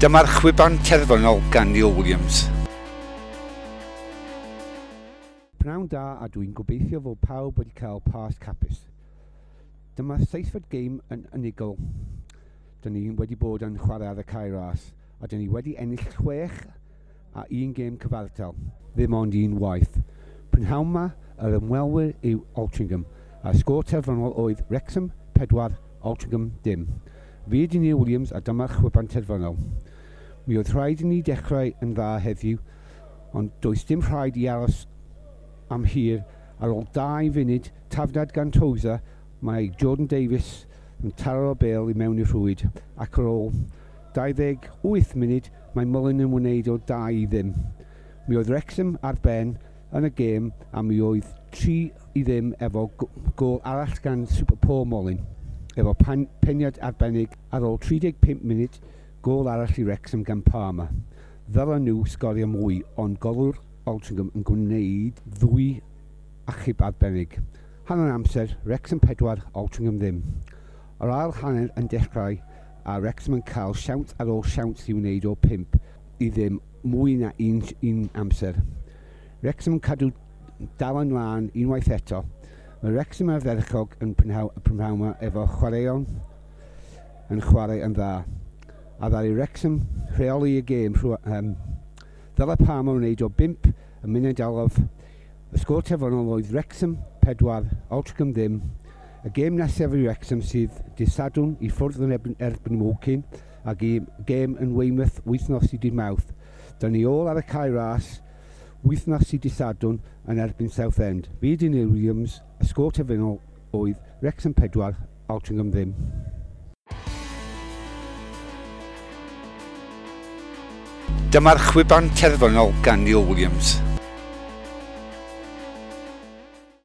Dyma'r chwiban terfynol gan Neil Williams. Pnawn da a dwi'n gobeithio fod pawb wedi cael Pasg hapus. Dyma seithfed gêm yn unigol. Dyn ni wedi bod yn chwarae ar y Cae Ras a dyn ni wedi ennill 6 a un gêm cyfartal, ddim ond un waith. Prynhawn ma, yr ymwelwyr yw Altrincham a'r sgôr terfynol oedd Wrexham 4, Altrincham dim. Fi ydy Neil Williams a dyma'r chwiban terfynol. Mi oedd rhaid i ni dechrau yn dda heddiw, ond does dim rhaid i aros am hir. Ar ôl 2 funud, tafliad gan Tozer, mae Jordan Davies yn taro bêl i mewn i'r rhwyd, ac ar ôl 28 munud mae Mullin yn wneud o 2-0. Mi oedd Wrexham ar ben yn y gêm a mi oedd 3-0 efo gôl arall gan Super Paul Mullin. Efo peniad arbennig ar ôl 35 munud, gôl arall i Wrexham gan Palmer. Ddylen nhw sgorio mwy, ond golwr Altrincham yn gwneud ddwy achub arbennig. Hanner amser, Wrexham 4, Altrincham ddim. Yr ail hanner yn dechrau a Wrexham yn cael siawns ar ôl siawns i wneud o 5-0 mwy na un amser. Wrexham yn cadw dal yn lân unwaith eto. Mae Wrexham ardderchog yn prynhawn yma efo chwaraeon yn chwarae yn dda. A ddaru Wrexham rheoli y gêm ddylai Palmer wneud o 5 y munud olaf. Y sgôr terfynol oedd Wrexham 4, Altrincham ddim. Y gêm nesaf i Wrexham sydd dydd Sadwrn i ffwrdd yn erbyn Woking a gêm yn Weymouth wythnos i dydd Mawrth. Dyna ni ôl ar y Cae Ras wythnos i dydd Sadwrn yn erbyn Southend. Fi ydy Neil Williams, y sgôr terfynol oedd Wrexham 4, Altrincham ddim. Dyma'r chwiban terfynol gan Neil Williams.